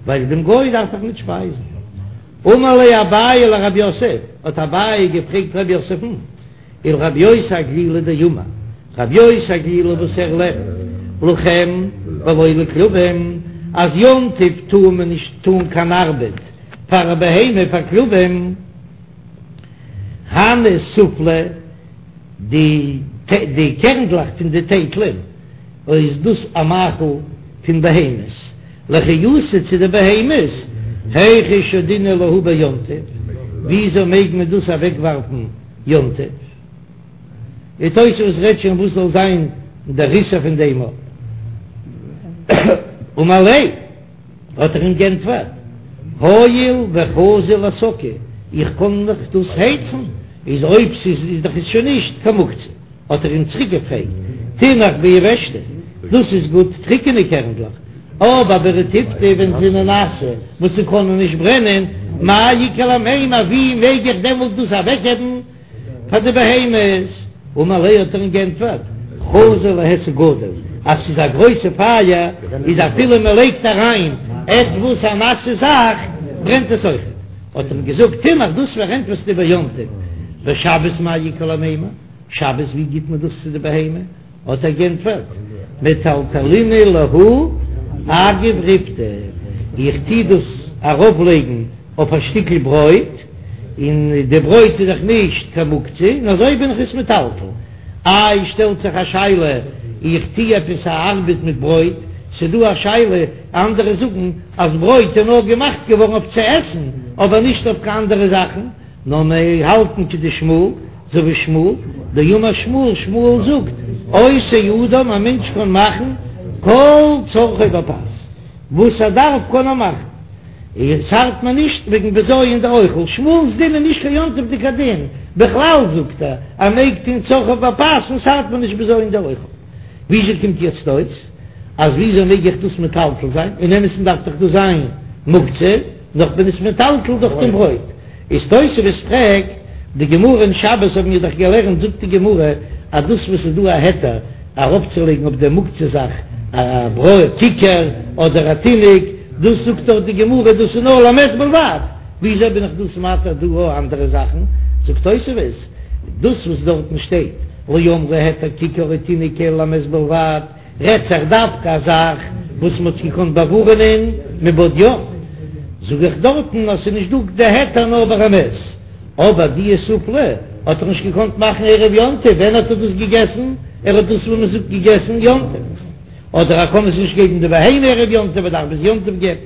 ווייל דעם גוי דארף איך נישט שפייזן. אמר ליה אביי לרב יוסף, האט אביי געפרעגט רב יוסף'ן, ולרבי יוסי הגלילי דאמר, רבי יוסי הגלילי וואס ער לערנט לכם ולא לכלבים, אז יום טוב טאר מען נישט טאן קיין ארבעט פאר א בהמה פאר כלבים, הני סופלי, די די קערנדלעך פון די טייטלען, איז דאס א מאכל פון בהמות, לחיותא צו די בהמות, היכי שדינן להו ביום טוב, וויאזוי מעג מען דאס אוועקווארפן יום טוב? די תוספות רעדט שוין וואס זאל זיין דער איסור פון דעם. אמר ליה, האט ער אים גענטפערט, הואיל וחזי להסקה, איך קען דאך דאס הייצן, איז אויב ס'איז איז דאך עס שוין נישט קיין מוקצה. האט ער אים צוריק געפרעגט, תינח ביבשתא, דאס איז גוט טריקענע קערנדלעך, אבער ברטיבתא ווען זענען נאסע וואס זיי קענען נישט ברענען, מאי איכא למימר, ווי מעג איך דעמאלט דאס אוועקגעבן פאר די בהמות? אמר ליה האט ער אים גענטפערט, חזי להיסק גדול, אז ס'איז א גרויסע פייער איז אפילו מען לייגט אריין עטוואס א נאסע זאך ברענט עס אויכעט, האט ער אים געזאגט, תינח דאס פארענטפערסטו ביום טוב, בשבת מאי איכא למימר? שבת ווי גיט מען דאס צו די בהמה? האט ער גענטפערט, מטלטלינא להו אגב ריפתא, איך טוה דאס ארויף לייגן אויף א שטיקל ברויט, און די ברויט איז דאך נישט קיין מוקצה, און אזוי בין איך עס מטלטל. איי שטעלט זיך א שאלה, איך טוה עפעס א ארבעט מיט ברויט, ס'דא א שאלה, אנדערע זאגן אז ברויט איז נאר געמאכט געווארן אויף צו עסן, אבער נישט אויף קיין אנדערע זאכן, נאר מיר האלטן כדשמואל, אזוי ווי שמואל, דאמר שמואל, שמואל זאגט, עושה אדם, א מענטש קען מאכן כל צרכו בפת, וואס ער דארף קען ער מאכן, און ס'ארט מיר נישט וועגן בזיון דאוכל, שמואל'ס דין איז נישט קיין יום טוב'דיגע דין, בכלל זאגט ער, ער מעג טון צרכיו בפת און ס'ארט מיר נישט בזיון דאוכל. וויאזוי קומט יעצט אויס אז וויאזוי מעג איך דאס מטלטל זיין, אין אמת'ן דארף דאך דאס זיין מוקצה, נאר כ'בין עס מטלטל דורך דעם ברויט. איז תוספות פרעגט, די גמרא אין שבת האבן מיר דאך געלערנט זאגט די גמרא אז דאס וואס איז דא א היתר ארויפצולייגן אויף דער מוקצה זאך א ברויט כיכר אדער א תינוק, דאס זאגט דאך די גמרא דאס איז נאר למת בלבד, וויאזוי בין איך דאס מתיר דא אויך אנדערע זאכן? זאגט תוספות, דאס וואס דארטן שטייט לא אמרו היתר כיכר או תינוק אלא למת בלבד, רעדט זיך דווקא א זאך וואס מ'האט געקאנט באווארענען מבעוד יום, זאג איך דארטן אז ס'איז נישט דא די היתר נאר ביי א מת, אבער די סופלי האט ער נישט געקאנט מאכן ערב יום טוב, ווען האט ער דאס געגעסן? ער האט דאס ווי מ'זאגט געגעסן יום טוב, אדער ער קען עס נישט געבן די בהמה ערב יום טוב, ער דארף ביז יום טוב געבן.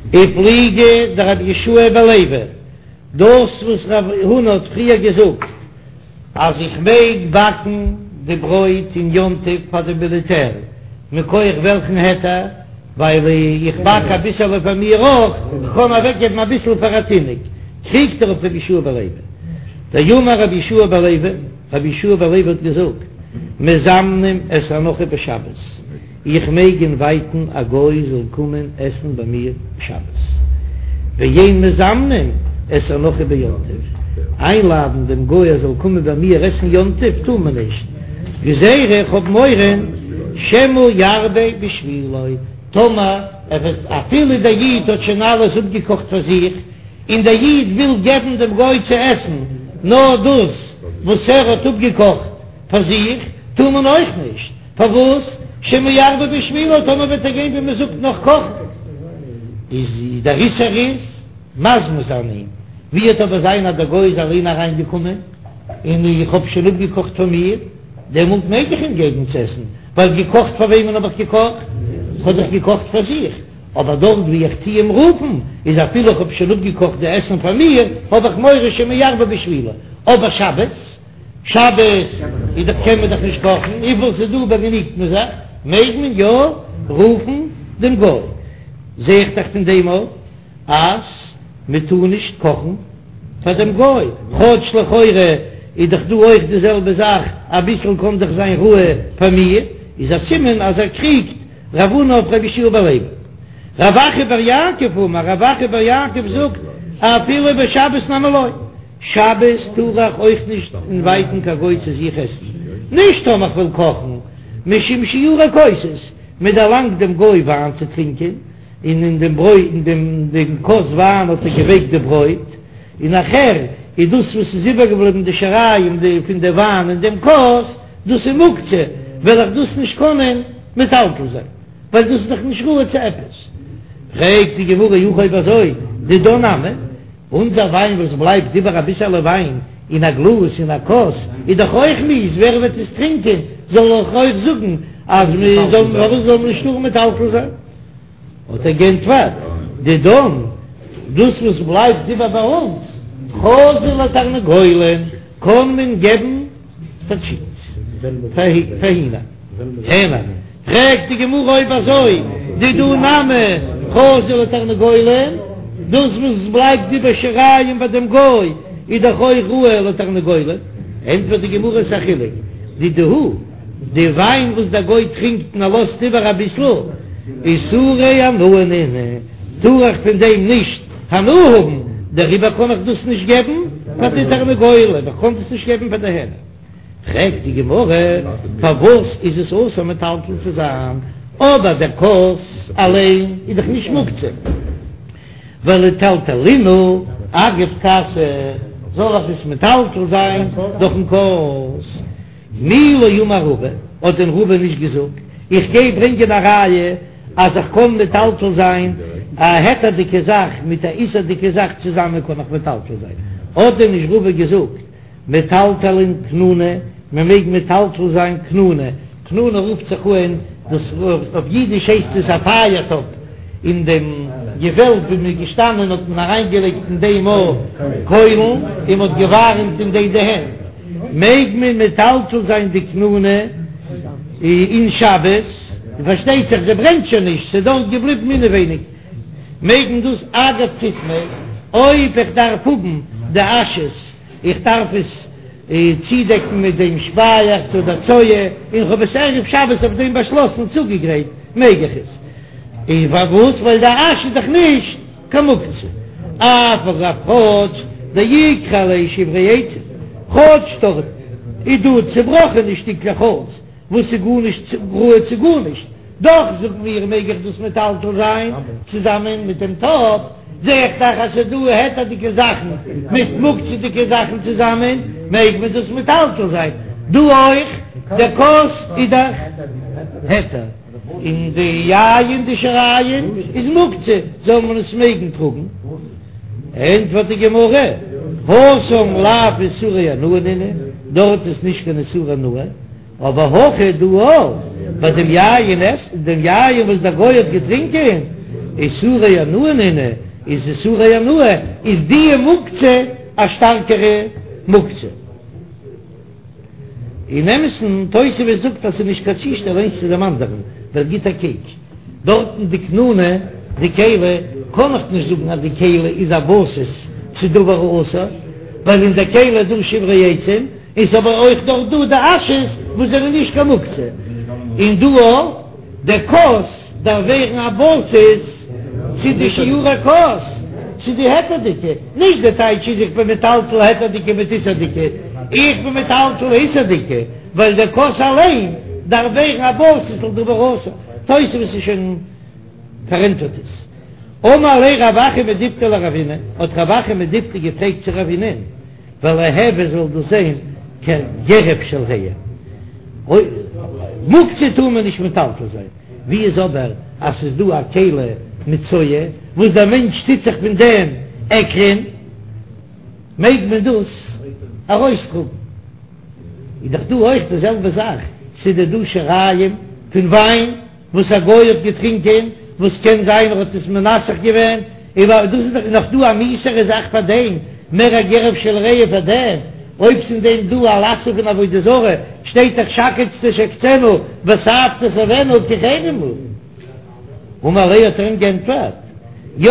ופליגא דרבי יהושע בן לוי, דאס וואס רב הונא האט פריער געזאגט אז איך מעג באקן די ברויט אין יום טוב פאר די מיליטער, מכח וועלכן היתר? ווייל איך באק אביסעלע פאר מיר אויך, איך קען אוועקגעבן אביסל פאר א תינוק, קריגט ער אויף רבי יהושע בן לוי. דאמר רבי יהושע בן לוי, רבי יהושע בן לוי האט געזאגט, מזמנים את הנכרי בשבת. איך מעג אינווייטן א גוי זאל קומען עסן ביי מיר שבת, ואין מזמנים את הנכרי ביום טוב, איינלאדן דעם גוי ער זאל קומען ביי מיר עסן יום טוב טאר מען נישט, גזירה איך האב מורא שמא ירבה בשבילו, טאמער ער וועט אפילו דער איד האט שוין אלעס אפגעקאכט פאר זיך, און דער איד וויל געבן דעם גוי צו עסן נאר דאס וואס ער האט אפגעקאכט פאר זיך, טאר מען אויך נישט. פארוואס? שמא ירבה בשבילו, טאמער וועט ער גיין ווי מען זאגט נאך קאכן, איז דער איסור איז מזמין זיין אים, ווי וועט אבער זיין אז דער גוי איז אליין אריין געקומען און איך האב שוין אפגעקאכט פאר מיר, דעמאלט מעג איך אים געבן צו עסן, ווייל געקאכט פאר וועמען האב איך געקאכט? כ'האב דאך געקאכט פאר זיך, אבער דארט ווי איך טוה אים רופן, איז אפילו איך האב שוין אפגעקאכט די עסן פאר מיר, האב איך מורא שמא ירבה בשבילו, אבער שבת? שבת איז דאך קען מען דאך נישט קאכן, וויפיל ס'איז דא באגעניגט מען זיך, מעג מען יא רופן דעם גוי, זע איך דאך פון דעם אויף אז מען טאר נישט קאכן פאר דעם גוי, כאטש לכאורה איז דאך דא אויך די זעלבע זאך, אביסל קען דאך זיין ראוי פאר מיר, איז א סימן אז ער קריגט רב הונא אויף רבי יהושע בן לוי. רב אחא בר יעקב אמר, רב אחא בר יעקב זאגט אפילו בשבת נמי לא. שבת טאר איך אויך נישט אינווייטן קיין גוי צו זיך עסן, נישט טאמער כ'וויל קאכן, משום שיורי כוסות, מען דערלאנגט דעם גוי וויין צו טרינקען, און אין דעם ברויט אין דעם דעם כוס וויין האט ער געווייקט די ברויט, און נאכער איז דאס וואס איז איבערגעבליבן די שיריים די פון די וויין אין דעם כוס, דאס איז מוקצה, וועל איך דאס נישט קענען מטלטל זיין, ווייל דאס איז דאך נישט ראוי צו עפעס. פרעגט די גמרא אי הכי אויב אזוי, דידן נמי, אונזער וויין וואס בלייבט איבער אביסעלע וויין אין א גלאז אין א כוס איז דאך אויך מיאוס, ווער וועט עס טרינקען? זאל איך אויך זאגן אז מען זאל פארוואס זאל מען נישט טארן מטלטל זיין? האט ער גענטפערט, דידן, דאס וואס בלייבט איבער ביי אונז, חזי לתרנגולין. קען מען געבן פאר טשיקנס, פאר הינער. הענער. פרעגט די גמרא אויב אזוי דידהו נמי חזו לתרנגולים, דאס וואס בלייבט איבער שיריים ביי דעם גוי איז דאך אויך ראוי לתרנגולים, ענטפערט די גמרא ס'א חילוק, דידהו, די וויין וואס דער גוי טרינקט און ער לאזט איבער אביסל, איסורי הנאה נינהו, טאר איך פון דעם נישט הנאה האבן, דעריבער קען איך דאס נישט געבן פאר די תרנגולים, איך קען דאס נישט געבן פאר די הענער. פרעגט די גמרא, פארוואס איז עס אסור מטלטל צו זיין, אבער דער כוס אליין איז דאך נישט מוקצה, ולטלטולינהו אגב כסא, זאל איך עס מטלטל זיין דורכן כוס? מי לא אמר רבא, האט דען רבא נישט געזאגט, איך גיי ברענגען א ראיה אז איך קען מטלטל זיין א היתר'דיגע זאך מיט א איסור'דיגע זאך צוזאמען קען איך מטלטל זיין, האט דען נישט רבא געזאגט מטלטלין כנונא, מען מעג מטלטל זיין כנונא, כנונא רופט זיך אן דאס אויף אידיש הייסט עס א פייער טאפ, אין דעם געוועלב ווי מען איז געשטאנען האט מען אריינגעלייגט אין דעם א קוילן און מען האט געווארעמט אין דעם די הענט, מעג מען מטלטל זיין די כנונא אין שבת, און פארשטייט זיך זי ברענט שוין נישט, ס'איז דארט געבליבן אינעווייניג, מעג מען דאס אגב פיטמא, אויב איך דארף האבן די אשעס. איך דארף עס צודעקן מיט דעם שפייעכץ אדער צואה, און כ'האב עס ערב שבת אויף דעם באשלאסן צוגעגרייט, מעג איך עס? און פארוואס? ווייל די אש איז דאך נישט קיין מוקצה. אף על גב כאטש דאיכא עליה שברי עצים, כאטש דארט איז דא צובראכענע שטיקלעך האלץ, וואס איז גארנישט ראוי צו גארנישט, דאך זאגן מיר מעג איך דאס מטלטל זיין צוזאמען מיט דעם טאפ, זע איך דאך אז ס'איז דא היתר'דיגע זאכן מיט מוקצה'דיגע זאכן צוזאמען, מעג מען דאס מטלטל זיין דא אויך, דער כוס איז דאך היתר, און די יין די שיריים איז מוקצה, זאל מען עס מעגן טראגן. ענטפערט די גמרא, התם לאו איסורי הנאה נינהו, דארט איז נישט קיין איסור הנאה, אבער הכא דא ביי דעם יין עס דעם יין וואס דער גוי האט געטרינקען, איסורי הנאה נינהו, איז איסורי הנאה, איז די מוקצה א שטארקערע מוקצה. אין אמת'ן, תוספות זאגט אז ס'איז נישט קיין צושטעל איינס צו דעם אנדערן, דער גיט א קוק דארטן די כנונא, די כלי, קען איך נישט זאגן אז די כלי איז א בסיס צו דבר האסור, ווייל אין די כלי איז דא שברי עצים, און ס'איז אבער אויך דארט דא די אשעס וואס זענען נישט קיין מוקצה, און דא אויך די כוס דארף ווערן א בסיס צו די שיורי כוס צו די היתר'דיגע, נישט די טייטש איז איך בין מטלטל היתר'דיגע מיט איסור'דיגע, איך בין מטלטל איסור'דיגע ווייל די כוס אליין דארף ווערן א בסיס לדבר האסור, תוספות איז שוין פארענטפערט עס. אמר ליה רב אחא מדיפתי לרבינא, האט רב אחא מדיפתי געפרעגט צו רבינא'ן, וליהוי זאל דאס זיין כגרף של רעי. מוקצה טאר מען נישט מטלטל זיין, ווי איז אבער אז ס'איז דא א כלי מיט צואה וואס דער מענטש טוט זיך פון דעם עקלען, מעג מען דאס ארויסטראגן? איז דאך דא אויך די זעלבע זאך, ס'איז דא דא שיריים פון וויין. וואס א גוי האט געטרינקען, וואס קען זיין ער האט עס מנסך געווען, און דאס איז דאך נאך דא א מיאוסערע זאך פאר דעם, מער א גרף של רעי פאר דעם, אויב ס'אין דעם דא א משא פון עבודה זרה, שטייט דאך שקץ תשקצנו ותעב תתעבנו כי חרם הוא. אמר ליה האט ער אים גענטפערט, יא,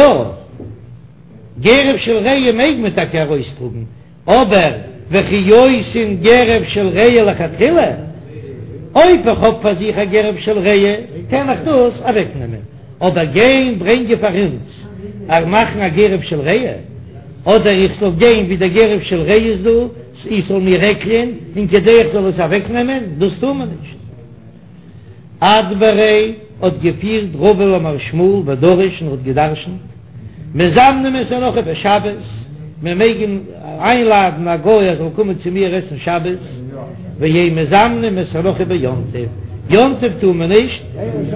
גרף של רעי מעג מען טאקע ארויסטראגן, אבער וכי עושין גרף של רעי לכתחילה, אויב איך האב פאר זיך א גרף של רעי קען איך דאס אוועק נעמען, אבער גיין ברענגען פאר אונז א מאכן א גרף של רעי, אדער איך זאל גיין ווי דער גרף של רעי איז דא, איך זאל מיר עקלען, און כדי איך זאל עס אוועק נעמען, דאס טאר מען נישט. אדבריה האט געפירט רבא למר שמואל ודרש און האט געדרשנט, מזמנים את הנכרי בשבת, מען מעג איינלאדן א גוי ער זאל קומען צו מיר עסן שבת, ואין מזמנים את הנכרי ביום טוב, יום טוב טאר מען נישט,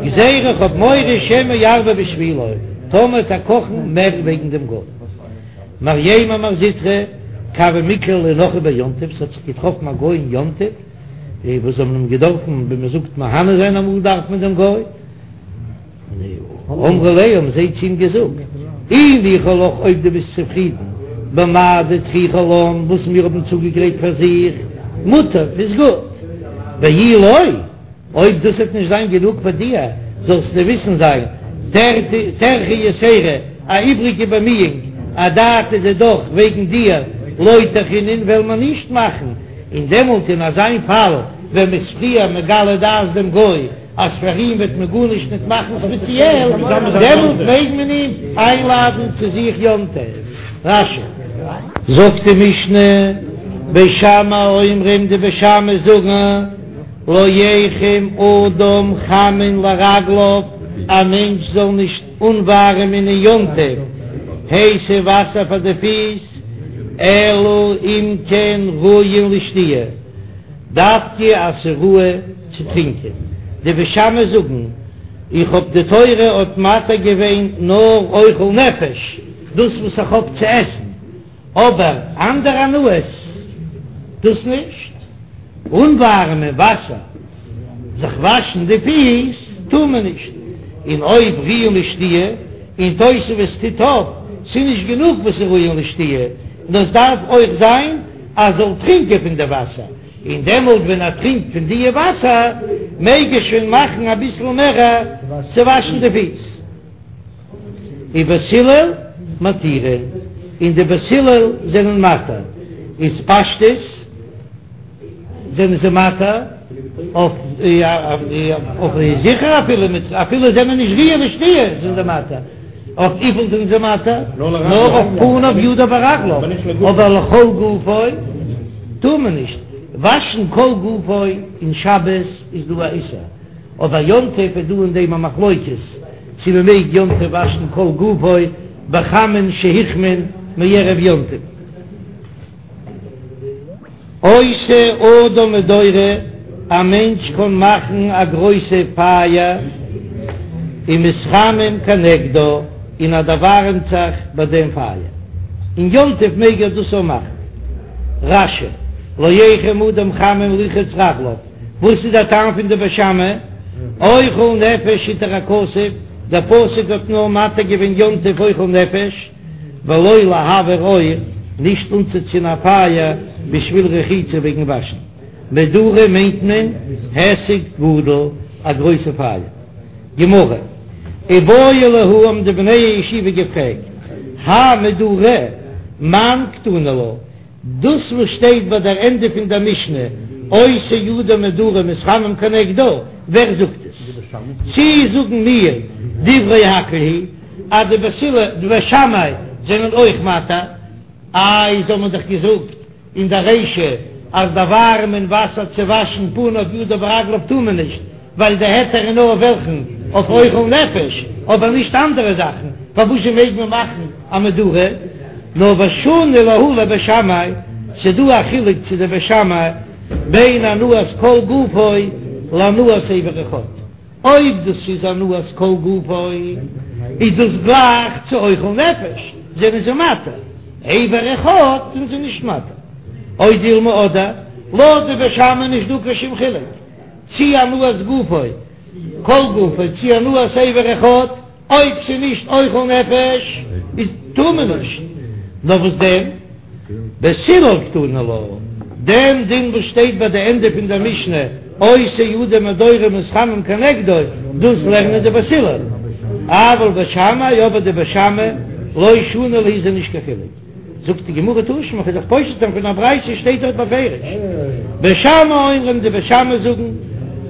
גזירה איך האב מורא שמא ירבה בשבילו, טאמער וועט ער קאכן מער וועגן דעם גוי. מרימר ומר זוטרא, כי הוה מיקלע להו נכרי ביום טוב, ס'האט זיך געטראפן א גוי אין יום טוב, די וואס האבן אים געדארפן ווי מען זאגט מהנה זיין אמאל דארף מען דעם גוי, אמרו ליה האבן זיי צו אים געזאגט, אי ניחא לך אויב דו ביסט צופרידן. במה דטריחא לן וואס מיר האבן צוגעגרייט פאר זיך, מוטב איז גוט, ואי לא, אויב דאס וועט נישט זיין גענוג פאר דיר, זאלסטו וויסן זיין, טרחא יתירא, א איבריגע באמיאונג, אדעתא דידך וועגן דיר, לא טרחינן וועלן מיר נישט מאכן, און דעמאלט אין אזיין פאל ווען מ'איז פריער מגלה דעת דעם גוי אז פאר אים וועט מען גארנישט ניט מאכן ספעציעל, דעמאלט מעג מען אים איינלאדן צו זיך יום טוב. רש"י. זאגט די משנה, בית שמאי אומרים די בית שמאי זאגן, לא יחם אדם חמין לרגליו, א מענטש זאל נישט אנווארעמען אין יום טוב הייסע וואסער פאר די פיס, אלא אם כן ראויין לשתיה, דווקא אז ס'איז ראוי צו טרינקען. די בית שמאי זאגן, איך האב די תורה האט מתיר געווען נאר אוכל נפש, דאס וואס איך האב צו עסן, אבער אנדערע הנאות דאס נישט. אנווארעמען וואסער זיך וואשן די פיס טאר מען נישט, און אויב ראויין לשתיה, און תוספות טוט אויף, ס'איז נישט גענוג וואס איז ראויין לשתיה, נאר עס דארף אויך זיין אז זאל טרינקען פון די וואסער, און דעמאלט ווען ער טרינקט פון די וואסער מעג ער שוין מאכן אביסל מער צו וואשן די פיס. ובית הלל מתירין, און די בית הלל זענען מתיר, איז פשטות זענען זיי מתיר אויף אויף זיכער אפילו מיט אפילו זענען נישט ראויין לשתיה זענען זיי מתיר, אויף וויפיל זענען זיי מתיר? נאר אויף פניו ידיו ורגליו, אבער לכל גופו טאר מען נישט וואשן כל גופו אין שבת איז דא א איסור. אבער יום טוב איז דא אין דעם א מחלוקת צו מען מעג יום טוב וואשן כל גופו בחמין שהוחמו מערב יום טוב. עושה אדם מדורה, א מענטש קען מאכן א גרויסע פייער, ומתחמם כנגדה, און ער דערווארעמט זיך ביי דעם פייער. אין יום טוב מעג ער דאס אויך מאכן. רש"י, לא יחם אדם חמין לרחוץ רגליו. וואס איז דער טעם פון די בית שמאי? אוכל נפש התיר הכתוב, דער פסוק האט נאר מתיר געווען יום טוב אוכל נפש, ולא להבעיר אור, נישט אנצוצינדן א פייער בשביל רחיצה וועגן וואשן. מדורה מיינט מען היסק גדול, א גרויסע פייער. גמרא, איבעיא להו האבן די בני הישיבה געפרעגט, האי מדורה מאן קתני לה, דאס וואס שטייט ביי דער ענדע פון דער משנה, עושה אדם מדורה ומתחמם כנגדה, ווער זאגט עס? צי זאגן מיר דברי הכל היא אז די בית הלל, די בית שמאי זענען אויך מתיר? איי, זיי האבן דאך געזאגט אין דער רישא אז דערווארעמען וואסער צו וואשן פניו ידיו ורגליו טאר מען נישט, ווייל די היתר איז נאר אויף וועלכן? אויף אוכל נפש, אבער נישט אנדערע זאכן, פארוואזשע מעג מען מאכן א מדורה? נאר ושני להו לבית שמאי, ס'דא א חילוק צו די בית שמאי בין הנאת כל גופו להנאת אבר אחד, אויב דאס איז הנאת כל גופו איז דאס גלייך צו אוכל נפש, זענען זיי מתיר, אבר אחד זענען זיי נישט מתיר, או דילמא אדער לויט די בית שמאי נישט דא קיין שום חילוק. צי הנאת גופו, כל גופו, צי הנאת אבר אחד, אויב ס'איז נישט אוכל נפש, איז טאר מען נישט. נאר וואס דען? בית הלל קתני לה, דעם דין וואס שטייט ביי די ענדע פון דער משנה, עושה אדם מדורה ומתחמם כנגדו, דאס לערנען די בית הלל. אבל בית שמאי, אבער די בית שמאי, לא שני להו איז נישט קיין חילוק. זאגט די גמרא תא שמע, כ'וועל דיך פושט זיין פון א ברייתא שטייט דארט בפירוש, בית שמאי אומרים די בית שמאי זאגן,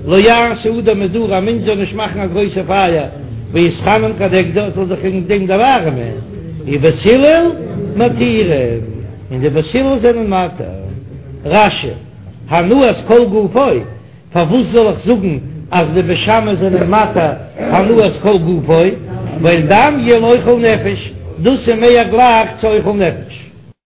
לא יעשה אדם מדורה א מענטש זאל נישט מאכן א גרויסע פייער ויתחמם כנגדה זאל זיך אין דעם דערווארעמען, ובית הלל מתירים, און די בית הלל זענען מתיר. רש"י, הנאת כל גופו. פארוואס זאל איך זאגן אז די בית שמאי זענען מתיר הנאת כל גופו, ווייל דמיא לאוכל נפש, דאס איז מער גלייך צו אוכל נפש.